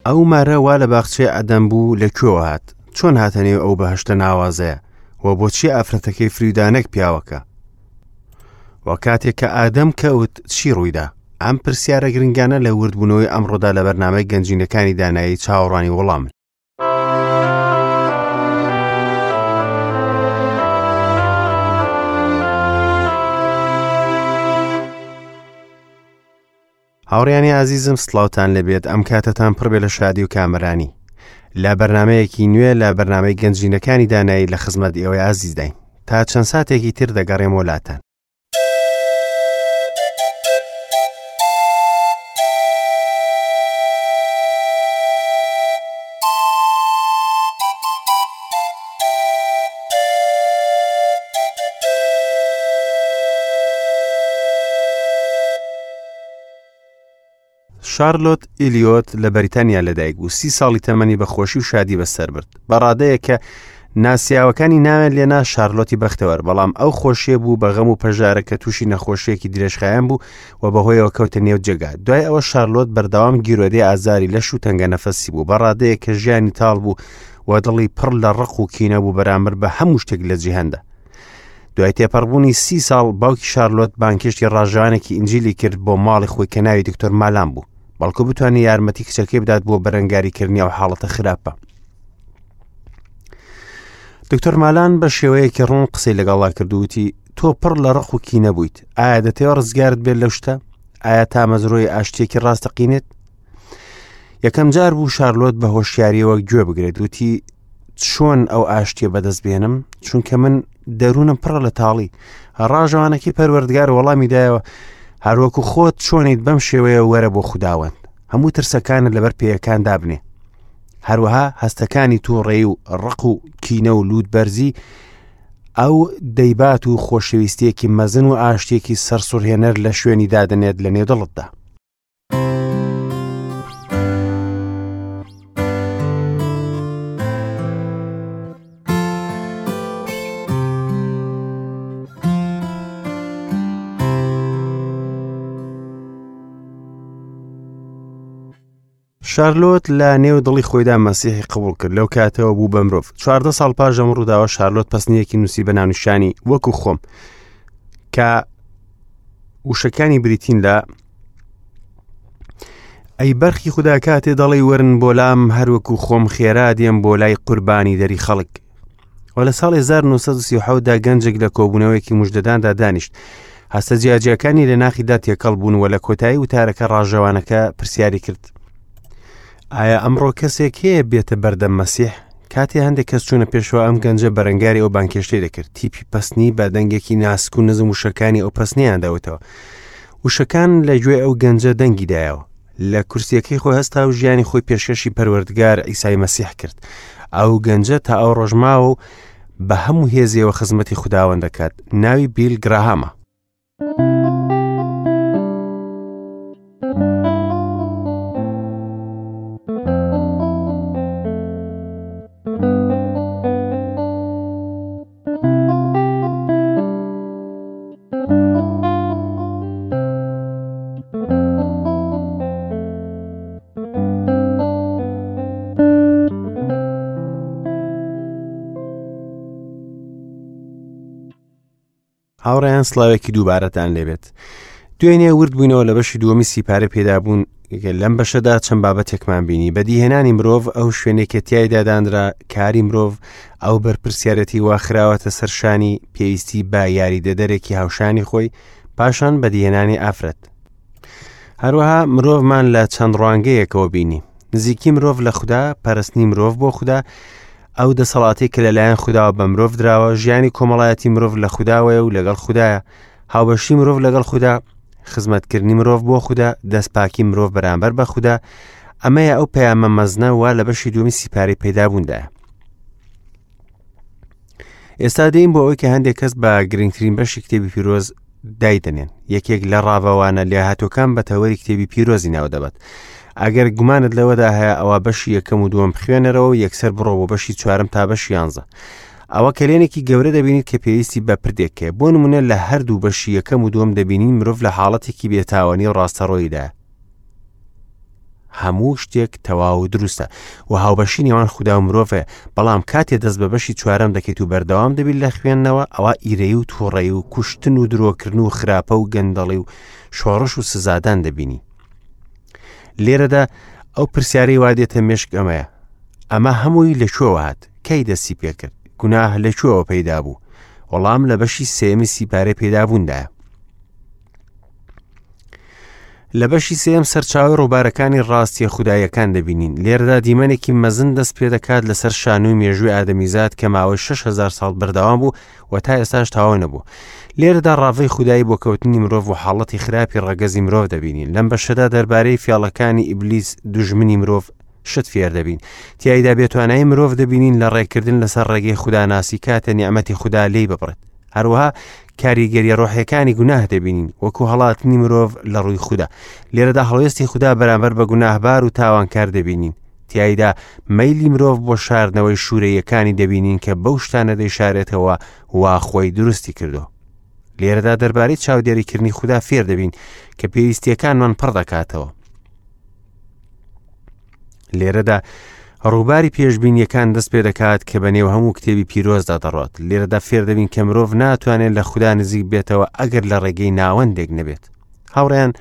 ئەو مارە وا لە باخچەی عەدەن بوو لە کوێوە هات؟ چۆن هاتە نێو ئەو بەهەشتە ناوازەیە؟ و بۆچی ئافرەتەکەی فریودا نەک پیاوەکە؟ و کاتێک کە ئادەم کەوت چی ڕوویدا؟ ئەم پرسیارە گرنگانە لە وردبوونەوەی ئەمڕۆدا لە بەرنامەی گەنجینەکانی دانایی چاوەڕوانی وەڵامن. هاوڕیانی ئازیزم سڵاوتان لەبێت ئەم کاتەتان پڕبێ لە شادی و کامەرانی لە بەرنمەیەکی نوێ لە بەرنمەی گەنجینەکانی دانایی لە خزمەت ئێوەی ئازیزداین تا چەند ساتێکی تر دەگەڕێم وەلاتان. شارلۆت ئیلیۆت لە بەریتانیا لەدایک بوو سی ساڵی تەمەنی بە خۆشی و شادی بەسەر برد بە ڕادەیە کە ناسیاوەکانی ناویان لێنا شارلۆتی بەختەوەر بەڵام ئەو خۆشیە بوو بە غەم و پەژارە کە تووشی نەخۆشیەکی درێژخایەن بوو و بەهۆیەوە کەوتە نێو جێگا دوای ئەوە شارلۆت بەردەوام گیرۆدەی ئازاری لەش و تەنگە نەفەسی بوو بە ڕادەیە کە ژیانی تاڵ بوو و دڵی پڕ لە ڕق و کینە بوو بەرامبەر بە هەموو شتێک لە جیهاندا دوای تێپەڕبوونی سی ساڵ باوکی شارلۆت بانکێشتی ڕاژانێکی ئینجیلی کرد بۆ ماڵی خۆی کە ناوی دکتۆر مالان بوو بەڵکو بتوانێت یارمەتی کچەکەی بدات بۆ بەرەنگاریکردنی ئەو حاڵەتە خراپە دکتۆر مالان بە شێوەیەکی ڕوون قسەی لەگەڵا کردووتی تۆ پڕ لە ڕق و کینە بوویت ئایا دەتەوە ڕزگارت بێت لەو شتە ئایا تامەزرۆی ئاشتێکی ڕاستەقینێت یەکەم جار بوو شارلۆت بە هۆشیاریەوە گوێ بگرێت وتی چۆن ئەو ئاشتیە بەدەست بێنم چونکە من دەروونم پڕە لە تاڵی ڕاژەوانەکەی پەروەردگار وەڵامی دایەوە هەروەکو خۆت چۆنیت بەم شێوەیە وەرە بۆ خوداوەند هەموو ترسەکانت لەبەر پێیەکان دابنێ هەروەها هەستەکانی تووڕێی و ڕق و کینە و لووت بەرزی ئەو دەیبات و خۆشەویستیەکی مەزن و ئاشتێکی سەرسوڕهێنەر لە شوێنی دادەنێت لە نێو دڵتدا. شارلۆت لە نێو دڵی خۆیدا مەسیحی قبوڵ کرد لەو کاتەوە بوو بە مرۆڤ چواردە ساڵ پاش ئەم ڕووداوە شارلۆت پەسنیەکی نووسی بە ناونیشانی وەکو خۆم کە وشەکانی بریتین لە ئەی بەرخی خودا کاتێ دەڵی وەرن بۆ لام هەروەکو خۆم خێرا دێم بۆ لای قوربانی دەری خەڵک و لە ساڵی 1937 دا گەنجێک لە کۆبوونەوەیەکی مژدەداندا دانیشت هەستە جیاجیاکانی لە ناخیدا تێکەڵ بوون و لە کۆتایی وتارەکە ڕاژەوانەکە پرسیاری کرد ئایا ئەمڕۆ کەسێک هەیە بێتە بەردەم مەسیح کاتێ هەندێک کەس چوونە پێشەوە ئەم گەنجە بەرەنگاری ئەو بانکێشتەی دەکرد تیپی پەسنی بە دەنگێکی ناسک و نزم وشەکانی ئەو پەسنیان دەوتەوە وشەکان لە گوێ ئەو گەنجە دەنگی دایەوە لە کورسیەکەی خۆی هەستا و ژیانی خۆی پێشکەشی پەروەردگار ئیسای مەسیح کرد ئەو گەنجە تا ئەو ڕۆژماوە و بە هەموو هێزیەوە خزمەتی خودداوەند دەکات ناوی بیل گراهامە. هاوڕێیان سڵاوێکی دووبارەتان لێبێت دوێنێ ورد بووینەوە لە بەشی دووەمی سیپارە پێدابوون لەم بەشەدا چەند بابەتێکمان بینی بەدیهێنانی مرۆڤ ئەو شوێنێک کە تیایدا دانرا کاری مرۆڤ ئەو بەرپرسیارەتی وا خراوەتە سەرشانی پێویستی بە یاریدەدەرێکی هاوشانی خۆی پاشان بەدیهێنانی ئافرەت هەروەها مرۆڤمان لە چەند ڕوانگەیەکەوە بینی نزیکی مرۆڤ لە خودا پەرستنی مرۆڤ بۆ خودا ئەو دەسەڵاتی کە لەلایەن خودداوە بە مرۆڤ دراوە ژیانی کۆمەڵایەتی مرۆڤ لە خودداوەیە و لەگەڵ خودایە هاوبەشی مرۆڤ لەگەڵ خودا خزمەتکردنی مرۆڤ بۆ خودا دەستپاکی مرۆڤ بەرامبەر بە خودا ئەمەیە ئەو پەیامە مەزنە وا لە بەشی دووەمی سیپارەی پەیدابووندایە ئێستا دێین بۆ ئەوەی کە هەندێک کەس بە گرنگترین بەشی کتێبی پیرۆز دایدەنێن یەکێک لە ڕاڤەوانە لێهاتوەکان بە تەوەری کتێبی پیرۆزی ناو دەبات ئەگەر گومانت لەوەدا هەیە ئەوە بەشی یەکەم و دووەم بخوێنەرەوە و یەکسەر بڕۆ بۆ بەشی چوارم تا بەشی یانزە ئەوە کەلێنێکی گەورە دەبینیت کە پێویستی بە پردێک هەیە بۆ نمونە لە هەردوو بەشی یەکەم و دووەم دەبینین مرۆڤ لە حاڵەتێکی بێتاوانی و ڕاستەڕۆییدا. هەموو شتێک تەواو و دروستە و هاوبەشی نێوان خودا و مرۆڤ هەیە، بەڵام کاتێ دەست بە بەشی چوارەم دەکەیت و بەردەوام دەبیت لە خوێندنەوە، ئەوا ئیرەیی و تووڕەیی و کوشتن و درۆکردن و خراپە و گەندەڵی و شۆڕش و سزادان دەبینی. لێرەدا ئەو پرسیارەی وا دێتە مێشک ئەمەیە، ئەمە هەمووی لە کوێوە هات؟ کەی دەستی پێکرد؟ گوناه لە کوێوە پەیدا بوو؟ وەڵام لە بەشی سێیەمی سیپارەی پەیدابووندایە. لە بەشی سێیەم سەرچاوەی ڕووبارەکانی ڕاستیە خوداییەکان دەبینین. لێرەدا دیمەنێکی مەزن دەست پێدەکات لەسەر شانۆی مێژووی ئادەمیزاد کە ماوەی 6000 ساڵ بەردەوام بوو و تا ئێستاش تەواو نەبوو. لێرەدا ڕاڤەی خودایی بۆ کەوتنی مرۆڤ و حاڵەتی خراپی ڕەگەزی مرۆڤ دەبینین. لەم بەشەدا دەربارەی فێڵەکانی ئیبلیس دوژمنی مرۆڤ شت فێر دەبین. تیایدا بێتوانایی مرۆڤ دەبینین لە ڕێکردن لەسەر ڕێگەی خوداناسی کاتێ نیعمەتی خودا لێی ببڕێت. هەروەها کاریگەریە ڕۆحیەکانی گوناه دەبینین وەکو هەڵاتنی مرۆڤ لە ڕووی خودا لێرەدا هەڵوێستی خودا بەرامبەر بە گوناهبار و تاوانکار دەبینین تیایدا مەیلی مرۆڤ بۆ شاردنەوەی شوورەیەکانی دەبینین کە بەو شتانە دەیشارێتەوە وا خۆی دروستی کردو لێرەدا دەربارەی چاودێریکردنی خودا فێر دەبین کە پێویستیەکانمان پڕ دەکاتەوە لێرەدا ڕووباری پێشبینیەکان دەست پێ دەکات کە بە نێو هەموو کتێبی پیرۆزدا دەڕات لێرەدا فێر دەبین کە مرۆڤ ناتوانێت لە خودا نزیک بێتەوە ئەگەر لە ڕێگەی ناوەندێک نەبێت هاوڕیان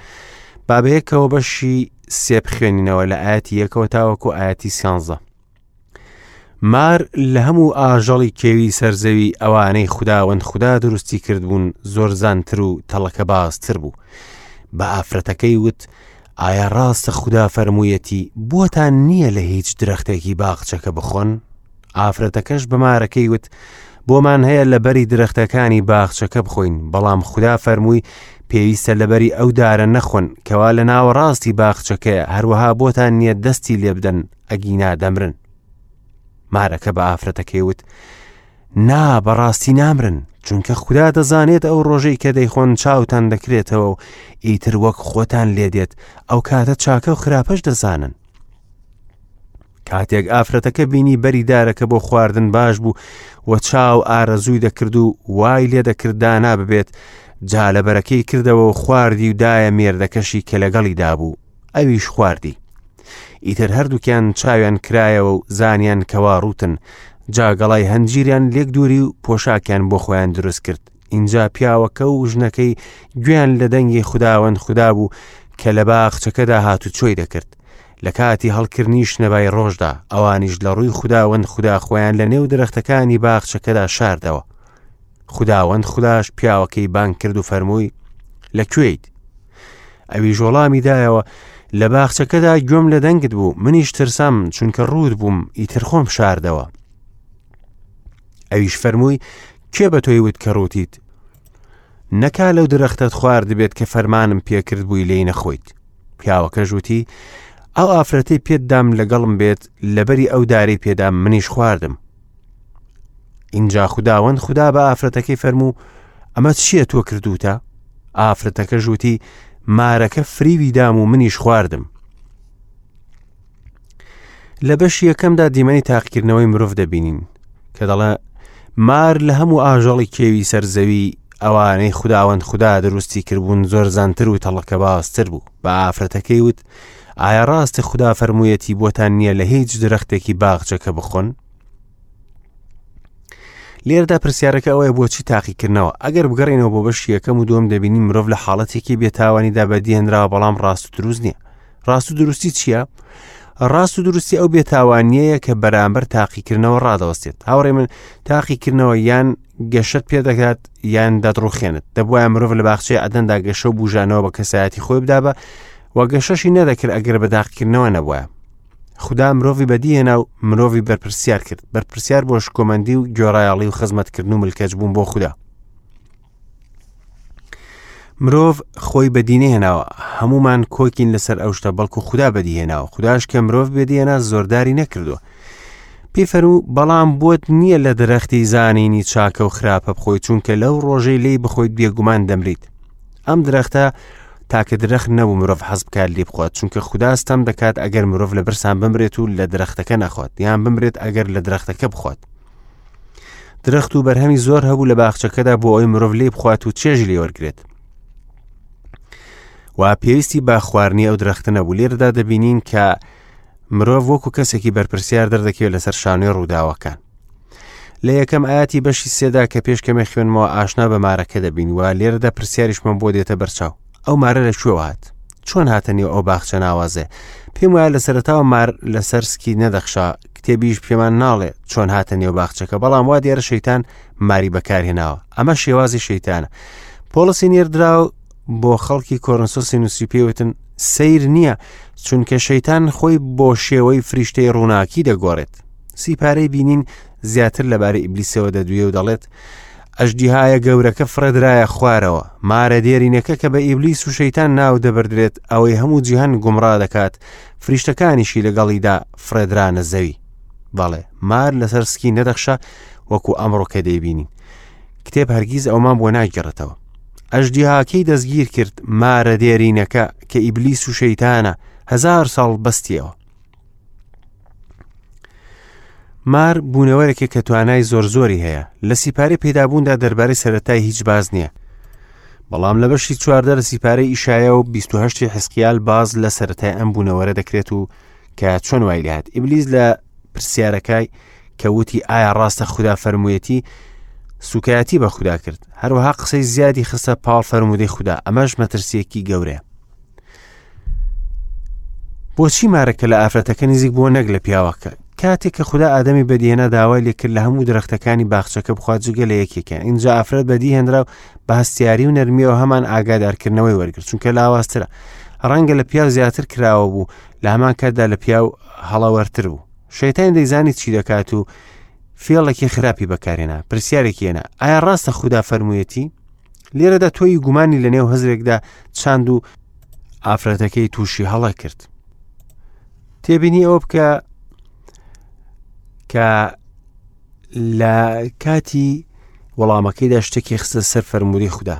بابەیەکەوە بەشی سێ بخوێنینەوە لە ئاەتی یەکەوە تاوەکو ئاەتی سیانزە مار لە هەموو ئاژەڵی کێوی سەرزەوی ئەوانەی خوداوەند خودا دروستی کردبوون زۆرزانتر و تەڵەکەبازتر بوو. بە ئافرەتەکەی وت، ئایا ڕاستە خودا فەرموویەتی بۆتان نییە لە هیچ درەختێکی باخچەکە بخۆن؟ ئافرەتەکەش بە مارەکەی وت، بۆمان هەیە لە بەری درەختەکانی باخچەکە بخۆین، بەڵام خودا فەرمووی پێویستە لەبەری ئەو دارە نەخۆن کەوا لە ناوەڕاستی باخچەکەیە، هەروەها بۆتان نییە دەستی لێبدەن ئەگینا دەمرن. مارەکە بە ئافرەتەکەی وت، نا بەڕاستی نامرن، چونکە خودا دەزانێت ئەو ڕۆژەی کە دەیخۆن چاوتان دەکرێتەوە و ئیتر وەک خۆتان لێدێت، ئەو کاتە چاکە و خراپەش دەزانن. کاتێک ئافرەتەکە بینی بەری دارەکە بۆ خواردن باش بوو و چاو ئارەزووی دەکرد و وای لێ دەکرد دانا ببێت، جا لە بەرەکەی کردەوە و خواردی و دایە مێردەکەشی کە لەگەڵیدا بوو، ئەویش خواردی. ئیتر هەردووکیان چاویان کرایەوە و زانیان کەوا ڕووتن، جا گەڵای هەنجیریان لێک دووری و پۆشاکیان بۆ خۆیان دروست کرد. ئینجا پیاوەکە و ژنەکەی گوێیان لە دەنگی خوداوەند خودا بوو کە لە باخچەکەدا هاتوچۆی دەکرد. لە کاتی هەڵکردنی شنەبای ڕۆژدا، ئەوانیش لە ڕووی خوداوەند خودا خۆیان لە نێو درەختەکانی باخچەکەدا شاردەوە. خوداوەند خوداش پیاوەکەی بانگ کرد و فەرمووی، لە کوێیت؟ ئەویش وەڵامی دایەوە، لە باخچەکەدا گوێم لە دەنگت بوو، منیش ترسام، چونکە ڕووت بووم، ئیتر خۆم شاردەوە. ئەویش فەرمووی، کێ بە تۆی وت کە ڕووتیت؟ نەکا لەو درەختەت خواردبێت کە فەرمانم پێکرد بووی لێی نەخۆیت. پیاوەکەش وتی، ئەو ئافرەتەی پێت دام لەگەڵم بێت، لەبەری ئەو دارەی پێدام منیش خواردم. ئینجا خوداوەند خودا بە ئافرەتەکەی فەرموو ئەمە چییە تۆ کردوتە؟ ئافرەتەکە ژووتی مارەکە فریوی دام و منیش خواردم. لە بەشی یەکەمدا دیمەنی تاقیکردنەوەی مرۆڤ دەبینین کە دەڵێ مار لە هەموو ئاژەڵی کێوی سەرزەوی ئەوانەی خوداوەند خودا دروستی کردبوون زۆر زانتر و تەڵەکەبازتر بوو بە ئافرەتەکەی وت ئایا ڕاستە خودا فەرموویەتی بۆتان نییە لە هیچ درەختێکی باخچەکە بخۆن لێرەدا پرسیارەکە ئەوەیە بۆچی تاقیکردنەوە ئەگەر بگەڕێنەوە بۆ بەشی یەکەم و دووەم دەبینین مرۆڤ لە حاڵەتێکی بێتاوانیدا بەدیهێنراوە بەڵام ڕاست و دروست نییە ڕاست و دروستی چییە؟ ڕاست و دروستی ئەو بێتاوانیەیە کە بەرامبەر تاقیکردنەوە ڕادەوەستێت هاوڕێ من تاقیکردنەوە یان گەشت پێ دەکات یان دەدڕوخێنت دەبواە مرۆڤ لە باخچەی عەدەندا گەشە و بژانەوە بە کەسایەتی خۆی بدا بە و گەشەشی نەدەکرد ئەگەر بە داقیکردنەوە نەبووە خودا مرۆڤی بەدیهێنا و مرۆڤی بەرپرسیار کرد بەرپرسیار بۆ شکۆمەندی و گۆڕایەڵی و خزمەتکردن و ملکەچ بوون بۆ خودا مرۆڤ خۆی بەدینەهێناوە هەمومان کۆکین لەسەر ئەو شتە بەڵکو خودا بەدیهێناوە خودداش کە مرۆڤ بێدیێنا زۆرداری نەکردووە پێی فەرموو بەڵام بۆت نییە لە درەختی زانینی چاکە و خراپە بخۆی چونکە لەو ڕۆژەی لێی بخۆیت بێگومان دەمریت ئەم درەختە تاکە درەخت نەبوو مرۆڤ حەز بکات لێ بخوات چونکە خودا ستەم دەکات ئەگەر مرۆڤ لە برسان بمرێت و لە درەختەکە نەخوات یان بمرێت ئەگەر لە درەختەکە بخوات درەخت و بەرهەمی زۆر هەبوو لە باخچەکەدا بۆ ئەوی مرۆڤ لێ بخوات و چێژی لێ وەرگێت و و پێویستی بە خواردنی ئەو درەختە نەبوو. لێرەدا دەبینین کە مرۆڤ وەکو کەسێکی بەرپرسیار دەردەکەوێت لەسەر شانۆی ڕووداوەکان. لە یەکەم ئاەتی بەشی سێدا کە پێش کەمێ خوێنمەوە ئاشنا بە مارەکە دەبین و لێرەدا پرسیاریشمان بۆ دێتە بەرچاو ئەو مارە لە کوێوە هات چۆن هاتە نێو ئەو باخچە ناوازێ پێم وایە لە سەرەتاوە مار لەسەر سکی نەدەخشا کتێبیش پێمان ناڵێ چۆن هاتە نێو باخچەکە بەڵام وا دیارە شەیتان ماری بەکارهێناوە ئەمە شێوازی شەیتانە پۆڵسی نێردراو بۆ خەڵکی کۆرنسۆسی نووسی پێوتن سیر نییە چونکە شەیتان خۆی بۆ شێوەی فریشتەی ڕووناکی دەگۆڕێت سیپارەی بینین زیاتر لەبارەی ئیبلیسەوە دەدوێ و دەڵێت ئەژدیهایە گەورەکە فڕێدرایە خوارەوە، مارە دێرینەکە کە بە ئیبلیس و شەیتان ناو دەبردرێت، ئەوەی هەموو جیهان گومڕا دەکات، فریشتەکانیشی لەگەڵیدا فڕێدرانە زەوی. بەڵێ، مار لەسەر سکی نەدەخشا وەکو ئەمڕۆ کە دەیبینین. کتێب هەرگیز ئەومان بۆ ناگێڕێتەوە. ئەژدیهاکەی دەستگیر کرد، مارە دێرینەکە کە ئیبلیس و شەیتانە، هەزار ساڵ بەستیەوە. مار بوونەوەرێکە کە توانای زۆر زۆری هەیە لە سیپارەی پەیدابووندا دەربارەی سەتای هیچ باز نییە بەڵام لە بەشی چواردە لە سیپارەی ئیشایە و 28 حسقیال باز لە سەتای ئەم بوونەوەرە دەکرێت و کە چۆن وای لات ئیبلیس لە پرسیارەکای کە وتی ئایا ڕاستە خودا فەرموویەتی سوکایەتی بە خودا کرد هەروەها قسەی زیادی خستە پاڵ فەرموودەی خودا ئەمەش مەترسیەکی گەورەیە بۆچی مارەکە لە ئافرەتەکە نزیک بووە نەک لە پیاوەکە کاتێک کە خدا ئادەمی بەدیهێنا داوای لێکرد لە هەموو درەختەکانی باخچەکە بخوات جگە لە یەکێکیان اینجا ئافرەت بەدیهێنرا و بە هەستیاری و نەرمیەوە هەمان ئاگادارکردنەوەی وەرگرت چونکە لاوازترە ڕەنگە لە پیاو زیاتر کراوە بوو لە هەمان کاتدا لە پیاو هەڵەوەرتر بوو شەیتان دەیزانی چی دەکات و فێڵێکی خراپی بەکارێنا پرسیارێکی هێنا ئایا ڕاستە خودا فەرموویەتی لێرەدا تۆی گومانی لە نێو هزرێکدا چاند و ئافرەتەکەی تووشی هەڵە کرد تێبینی ئەوە بکە کە لە کاتی وەڵامەکەیدا شتێکی خستە سەر فەرمووی خوددا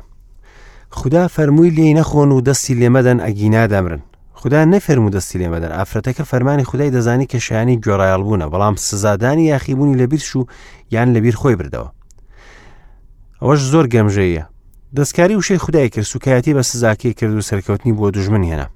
خوددا فەرمووی لێی نەخۆن و دەستی لێمەدەن ئەگینا دەمرن خدا نەفەرموو دەستی لێمەدەن ئافرەتەکە فەرمانی خدای دەزانی کە شایانی گوێڕایەڵ بوونە بەڵام سزادانی یاخیبوونی لەبیر چوو یان لەبیر خۆی بردەوە ئەوەش زۆر گەمژەیە دەستکاری وشەی خودای کرد سوکایەتی بە سزاکەی کرد و سەرکەوتنی بۆ دوژمن هێنا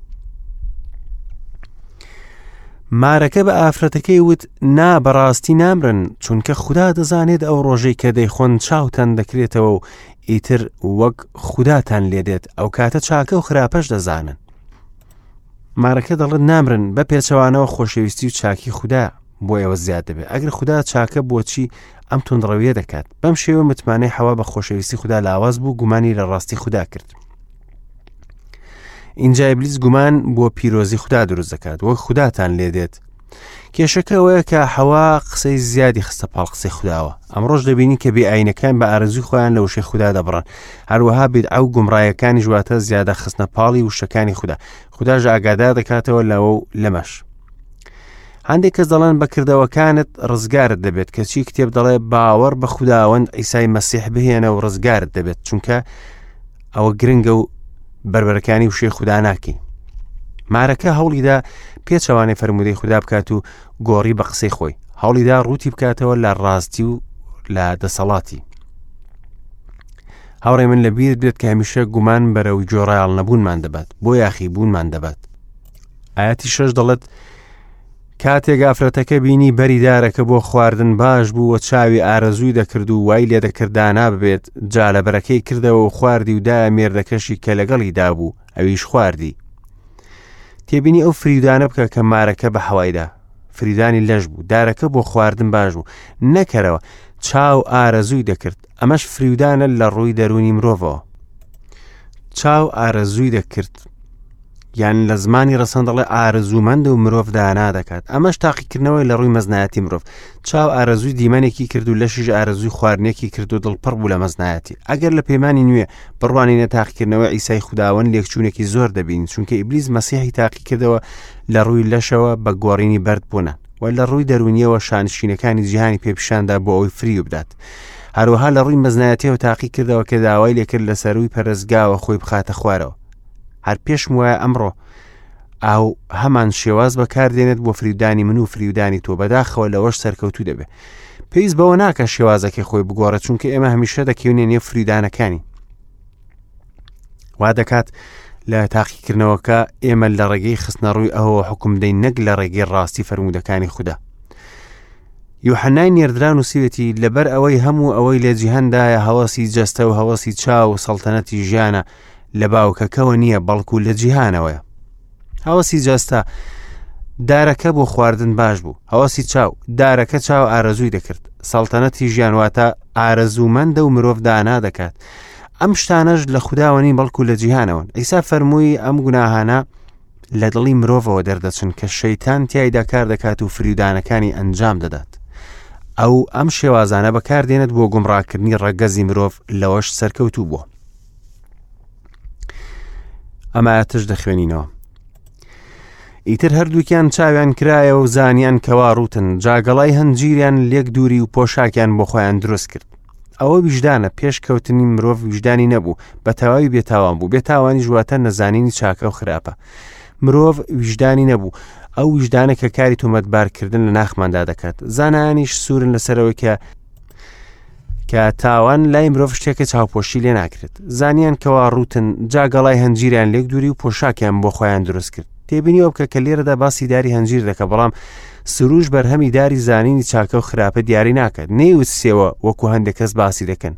مارەکە بە ئافرەتەکەی وت نا بەڕاستی نامرن چونکە خودا دەزانێت ئەو ڕۆژەی کە دەیخۆن چاوتان دەکرێتەوە و ئیتر وەک خوداتان لێدێت ئەو کاتە چاکە و خراپەش دەزانن مارەکە دەڵێت نامرن بە پێچەوانەوە خۆشەویستی و چاکی خودا بۆ ئێوە زیاد دەبێت ئەگەر خودا چاکە بۆچی ئەم توندڕەویە دەکات بەم شێوە متمانەی حەوا بە خۆشەویستی خودا لاواز بوو گومانی لە ڕاستی خودا کرد اینجا ئیبلیس گومان بۆ پیرۆزی خودا دروست دەکات وەک خوداتان لێدێت کێشەکە ئەوەیە کە حەوا قسەی زیادی خستە پاڵ قسەی خودداوە ئەمڕۆژ دەبینی کە بێ ئاینەکان بە ئارەزوی خۆیان لە وشەی خودا دەبڕن هەروەها بیدعە و گومڕایەکانی ژواتە زیادە خستنە پاڵی وشەکانی خودا خودداش ئاگادار دەکاتەوە لەوە و لەمەش هەندێک کەس دەڵێن بە کردەوەکانت ڕزگارت دەبێت کەچی کتێب دەڵێ باوەڕ بە خوداوەند ئیسای مەسیح بهێنە و ڕزگارت دەبێت چونکە ئەوە گرنگە و بەربەرەکانی وشەی خودا ناکەین مارەکە هەوڵیدا پێچەوانەی فەرمودەی خودا بکات و گۆڕی بە قسەی خۆی هەوڵیدا ڕووتی بکاتەوە لە ڕاستی و لە دەسەڵاتی هاوڕێ من لە بیر بێت کە هەمیشە گومان بەرەو گۆڕایاڵ نەبوونمان دەبات بۆ یاخی بوونمان دەبات ئاەتی شەش دەڵێت کاتێک ئافرەتەکە بینی بەری دارەکە بۆ خواردن باش بوو و چاوی ئارەزووی دەکرد و وای لێ دەکرد دانا ببێت جا لە بەرەکەی کردەوە و خواردی و دایە مێردەکەشی کە لەگەڵی دابوو ئەویش خواردی تێبینی ئەو فریودانە بکە کە مارەکە بە حەوایدا فریدانی لەش بوو دارەکە بۆ خواردن باش بوو نەکەرەوە چاو ئارەزووی دەکرد ئەمەش فریودانە لە ڕووی دەروونی مرۆڤەوە چاو ئارەزووی دەکرد یان لە زمانی ڕەسەن دەڵێ ئارەزوومەند و مرۆڤ دانا دەکات ئەمەش تاقیکردنەوەی لە ڕووی مەزنایەتی مرۆڤ چاو ئارەزووی دیمەنێکی کرد و لەشیش ئارەزووی خواردنێکی کرد و دڵپڕ بوو لە مەزنایەتی ئەگەر لە پەیمانی نوێ بڕوانینە تاقیکردنەوەی ئیسای خوداوەند لێکچوونێکی زۆر دەبین چونکە ئیبلیس مەسیحی تاقیکردەوە لە ڕووی لەشەوە بە گۆڕینی بەرد بوونە و لە ڕووی دەرونیەوە شانشینەکانی جیهانی پێپیشاندا بۆ ئەوەی فریو بدات هەروەها لە ڕووی مەزنایەتیەوە تاقی کردەوە کە داوای لێکرد لە سەروی پەرستگاوە خۆی بخاتە خوارەوە هەر پێشم وایە ئەمڕۆ ئاو هەمان شێواز بەکاردێنێت بۆ فریودانی من و فریودانی تۆ بەداخەوە لەوەش سەرکەوتوو دەبێت پێویست بەوە ناکە شێوازەکەی خۆی بگۆڕێت چونکە ئێمە هەمیشە دەکەونێ نێو فریودانەکانی وا دەکات لە تاقیکردنەوەکە ئێمە لە ڕێگەی خستنەڕووی ئەوەوە حکوم دەین نەک لە ڕێگەی ڕاستی فەرموودەکانی خودا. یوحەنای نێردرا نووسیوێتی لەبەر ئەوەی هەموو ئەوەی لە جیهاندایە هەوەسی جەستە و هەوەسی چاو و سەڵتەنەتی ژیانە لە باوکەکەوە نییە بەڵکو لە جیهانەوەیە. هەوەسی جەستە دارەکە بۆ خواردن باش بوو هەوەسی چاو دارەکە چاو ئارەزووی دەکرد سەڵتەنەتی ژیان واتە ئارەزوومەندە و مرۆڤ دانا دەکات ئەم شتانەش لە خودداوە نین بەڵکو لە جیهانەوەن ئیسا فەرمووی ئەم گوناهانە لە دڵی مرۆڤەوە دەردەچن کە شەیتان تیایدا کار دەکات و فریودانەکانی ئەنجام دەدات ئەو ئەم شێوازانە بەکاردێنێت بۆ گومڕاکردنی ڕەگەزی مرۆڤ لەوەش سەرکەوتوو بووە ئەم ئاەتش دەخوێنینەوە ئیتر هەردووکیان چاویان کرایە و زانیان کەوا ڕوتن جاگەڵای هەنجیریان لێک دووری و پۆشاکیان بۆ خۆیان دروست کرد ئەوە ویژدانە پێش کەوتنی مرۆڤ ویژدانی نەبوو بە تەواوی بێتاوان بوو بێتاوانی ژواتە نەزانینی چاکە و خراپە مرۆڤ ویژدانی نەبوو ئەو ویژدانە کە کاری تۆمەتبارکردن لە ناخماندا دەکات زانایانیش سوورن لەسەرەوەی کە کە تاوان لای مرۆڤ شتێکە چاوپۆشی لێ ناکرێت زانیان کەوا ڕوتن جا گەڵای هەنجیریان لێک دووری و پۆشاکیان بۆ خۆیان دروست کرد تێبینیەوە بکە کە لێرەدا باسی داری هەنجیر دەکە بەڵام سروش بەرهەمی داری زانینی چاکە و خراپە دیاری ناکات نەیوت سێوە وەکو هەندێک کەس باسی دەکەن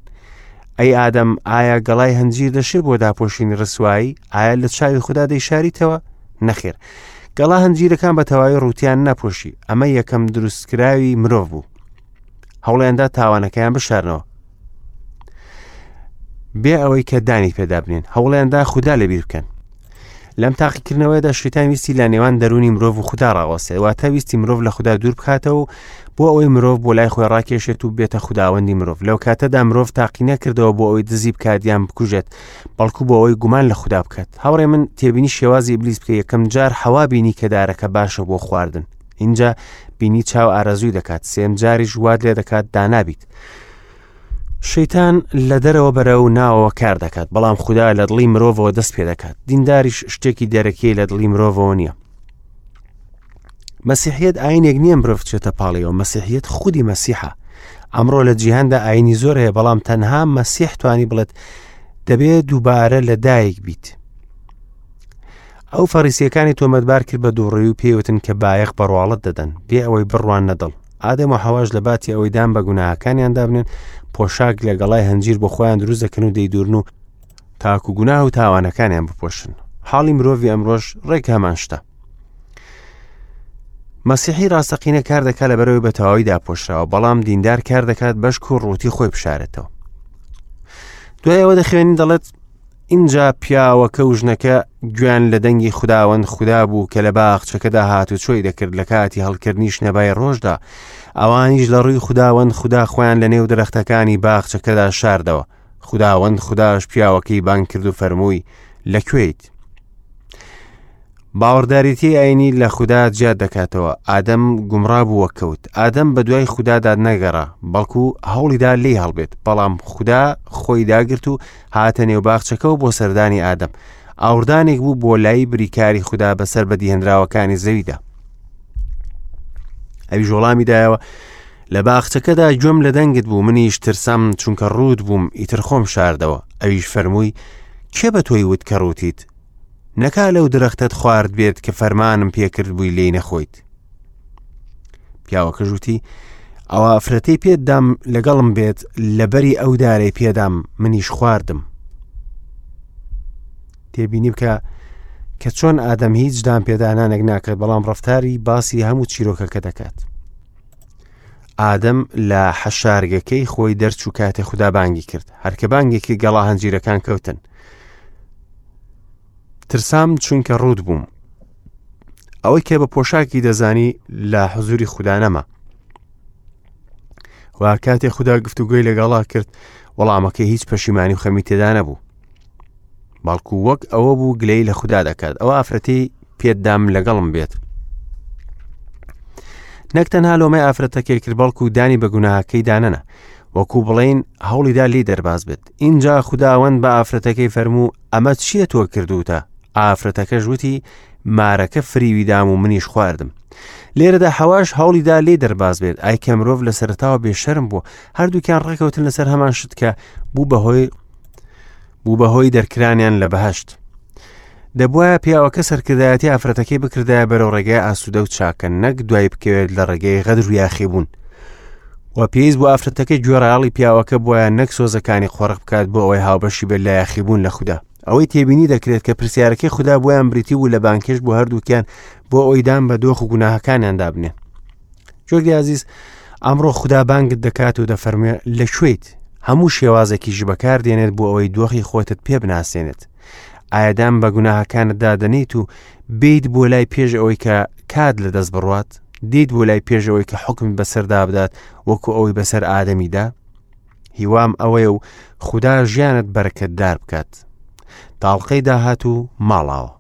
ئەی ئادەم ئایا گەڵای هەنجیر دەشێ بۆ داپۆشینی ڕسوایی ئایا لە چاوی خوددا دەیشاریتەوە نەخێر گەڵا هەنجیرەکان بە تەواوی ڕوتیان نەپۆشی ئەمە یەکەم دروستکراوی مرۆڤ بوو هەوڵیاندا تاوانەکەیان بشارنەوە بێ ئەوەی کە دانی پێدا بنێن هەوڵیاندا خودا لەبیر بکەن لەم تاقیکردنەوەیدا شیتان ویستی لە نێوان دەرونی مرۆڤ و خودا ڕاوەستێ واتە ویستی مرۆڤ لە خودا دوور بکاتەوە بۆ ئەوەی مرۆڤ بۆ لای خۆی ڕاکێشێت و بێتە خوداوەندی مرۆڤ لەو کاتەدا مرۆڤ تاقی نەکردەوە بۆ ئەوەی دزی بکات یان بکوژێت بەڵکو بۆ ئەوەی گومان لە خودا بکات هاوڕێ من تێبینی شێوازی ئیبلیس بکە یەکەم جار حەوا بینی کە دارەکە باشە بۆ خواردن ئینجا بینی چاو ئارەزووی دەکات سێم جاریش وات لێ دەکات دانابیت شەیتان لە دەرەوە بەرە و ناوەوە کار دەکات بەڵام خودا لە دڵی مرۆڤەوە دەست پێ دەکات دینداریش شتێکی دەرەکی لە دڵی مرۆڤەوە نییە مەسیحیت ئاینێک نییە مرۆڤ چێتە پاڵیەوە مەسیحیت خودی مەسیحە ئەمڕۆ لە جیهاندا ئاینی زۆر هەیە بەڵام تەنها مەسیح توانی بڵێت دەبێت دووبارە لە دایک بیت ئەو فەڕیسیەکانی تۆمەتبار کرد بە دووڕووی و پێیوتن کە بایەخ بە ڕواڵەت دەدەن بێ ئەوەی بڕواننە دڵ. ئادەم و حەواش لە باتی ئەوەی دان بە گوناهەکانیان دابنێن پۆشاک لە گەڵای هەنجیر بۆ خۆیان دروست دەکەن و دەیدورن و تاکو گوناه و تاوانەکانیان بپۆشن. حاڵی مرۆڤی ئەمڕۆش ڕێک هەمان شتە. مەسیحی ڕاستەقینە کار دەکات لەبەرەوەی بە تەواوی داپۆشراوە بەڵام دیندار کار دەکات بەشک و ڕووتی خۆی بشارێتەوە. دوای ئەوە دەخوێنین دەڵێت ئینجا پیاوەکە و ژنەکە گوێیان لە دەنگی خوداوەند خودا بوو کە لە باخچەکەدا هاتوچۆی دەکرد لە کاتی هەڵکردنی شنەبای ڕۆژدا، ئەوانیش لە ڕووی خوداوەند خودا خۆیان لە نێو درەختەکانی باخچەکەدا شاردەوە. خوداوەند خوداش پیاوەکەی بانگ کرد و فەرمووی، لە کوێیت؟ باوەڕداریی ئاینی لە خودا جیا دەکاتەوە ئادەم گومڕا بووە کەوت ئادەم بە دوای خودادا نەگەڕا بەڵکو هەوڵیدا لێی هەڵبێت بەڵام خودا خۆی داگرت و هاتە نێو باخچەکەەوە بۆ سەردانی ئادەم ئاوردانێک بوو بۆ لای بریکاری خودا بەسەر بەدیهێنراوەکانی زەویدا ئەویش وەڵامی دایەوە لە باخچەکەدا گوێم لە دەنگت بوو منیش ترسام چونکە ڕووت بووم ئیتر خۆم شاردەوە ئەویش فەرمووی کێ بە تۆی وت کە ڕووتیت نەکا لەو درەختەت خوارد بێت کە فەرمانم پێکرد بووی لێی نەخۆیت پیاوەکە ژووتی ئەوە ئەفرەتەی پێدام لەگەڵم بێت لەبەری ئەو دارەی پێدام منیش خواردم تێبینی بکە کە چۆن ئادەم هیچ دان پێدانانێک ناکات بەڵام ڕفتاری باسی هەموو چیرۆکەکە دەکات ئادەم لە حەشارگەکەی خۆی دەرچوو کاتێ خودا بانگی کرد هەرکە بانگێکی گەڵا هەنجیرەکان کەوتن ترسام چونکە ڕوت بووم ئەوەی کە بە پۆشاکی دەزانی لە حزوری خودا نەما و کاتێ خودا گفتوگۆی لەگەڵا کرد وەڵامەکەی هیچ پەشیمانی و خەمی تێدا نەبوو بەڵکو وەک ئەوە بوو گلەی لە خودا دەکات ئەو ئافرەتی پێتدام لەگەڵم بێت نەک تەنها لۆمەی ئافرەتەکەی کرد بەڵکو دانی بە گوناهەکەی دانەنا وەکو بڵین هەوڵیدا لی دەرباز بێت اینجا خوداوەند بە ئافرەتەکەی فەرموو ئەمە چییە تۆ کردوتە ئافرەتەکەش وتی مارەکە فریوی دام و منیش خواردم لێرەدا حەواش هەوڵیدا لێ دەرباز بێت ئای کە مرۆڤ لە سەرتاوە بێشەرم بوو هەردووکیان ڕێکەوتن لەسەر هەمان شت کە بوو بەهۆی بوو بەهۆی دەرکرانیان لە بەهشت. دەبوایە پیاوەکە سەرکردایەتی ئافرەتەکەی بکردایە بەرەو ڕێگای ئاسوودە و چاکە نەک دوای بکەوێت لە ڕێگەی غەدر و یاخیبوون. و پێویست بۆ ئافرەتەکە گوێڕایەڵی پیاوەکە بۆیان نەک سۆزەکانی قۆرخ بکات بۆ ئەوەی هاوبەشی بێت لە یاخیبوون لە خودا. ئەوەی تێبینی دەکرێت کە پرسیارەکەی خودا بۆیان بریتی بوو لە بانکێش بۆ هەردووکیان بۆ ئەوەی دان بە دۆخ و گوناهەکانیاندا بنێن. جۆرگی ئازیز ئەمڕۆ خودا بانگت دەکات و دەفەرموێ لە کوێیت؟ هەموو شێوازێکیش بەکار دێنێت بۆ ئەوەی دۆخی خۆتت پێ بناسێنێت. ئایا دان بە گوناهەکانتدا دەنێیت و بێیت بۆ لای پێش ئەوەی کە کات لە دەست بڕوات؟ دێیت بۆ لای پێش ئەوەی کە حوکمت بەسەردا بدات وەکو ئەوەی بەسەر ئادەمیدا؟ هیوام ئەوەیە و خودا ژیانت بەرەکەتدار بکات. تاڵقەی داهاتوو ماڵاوە.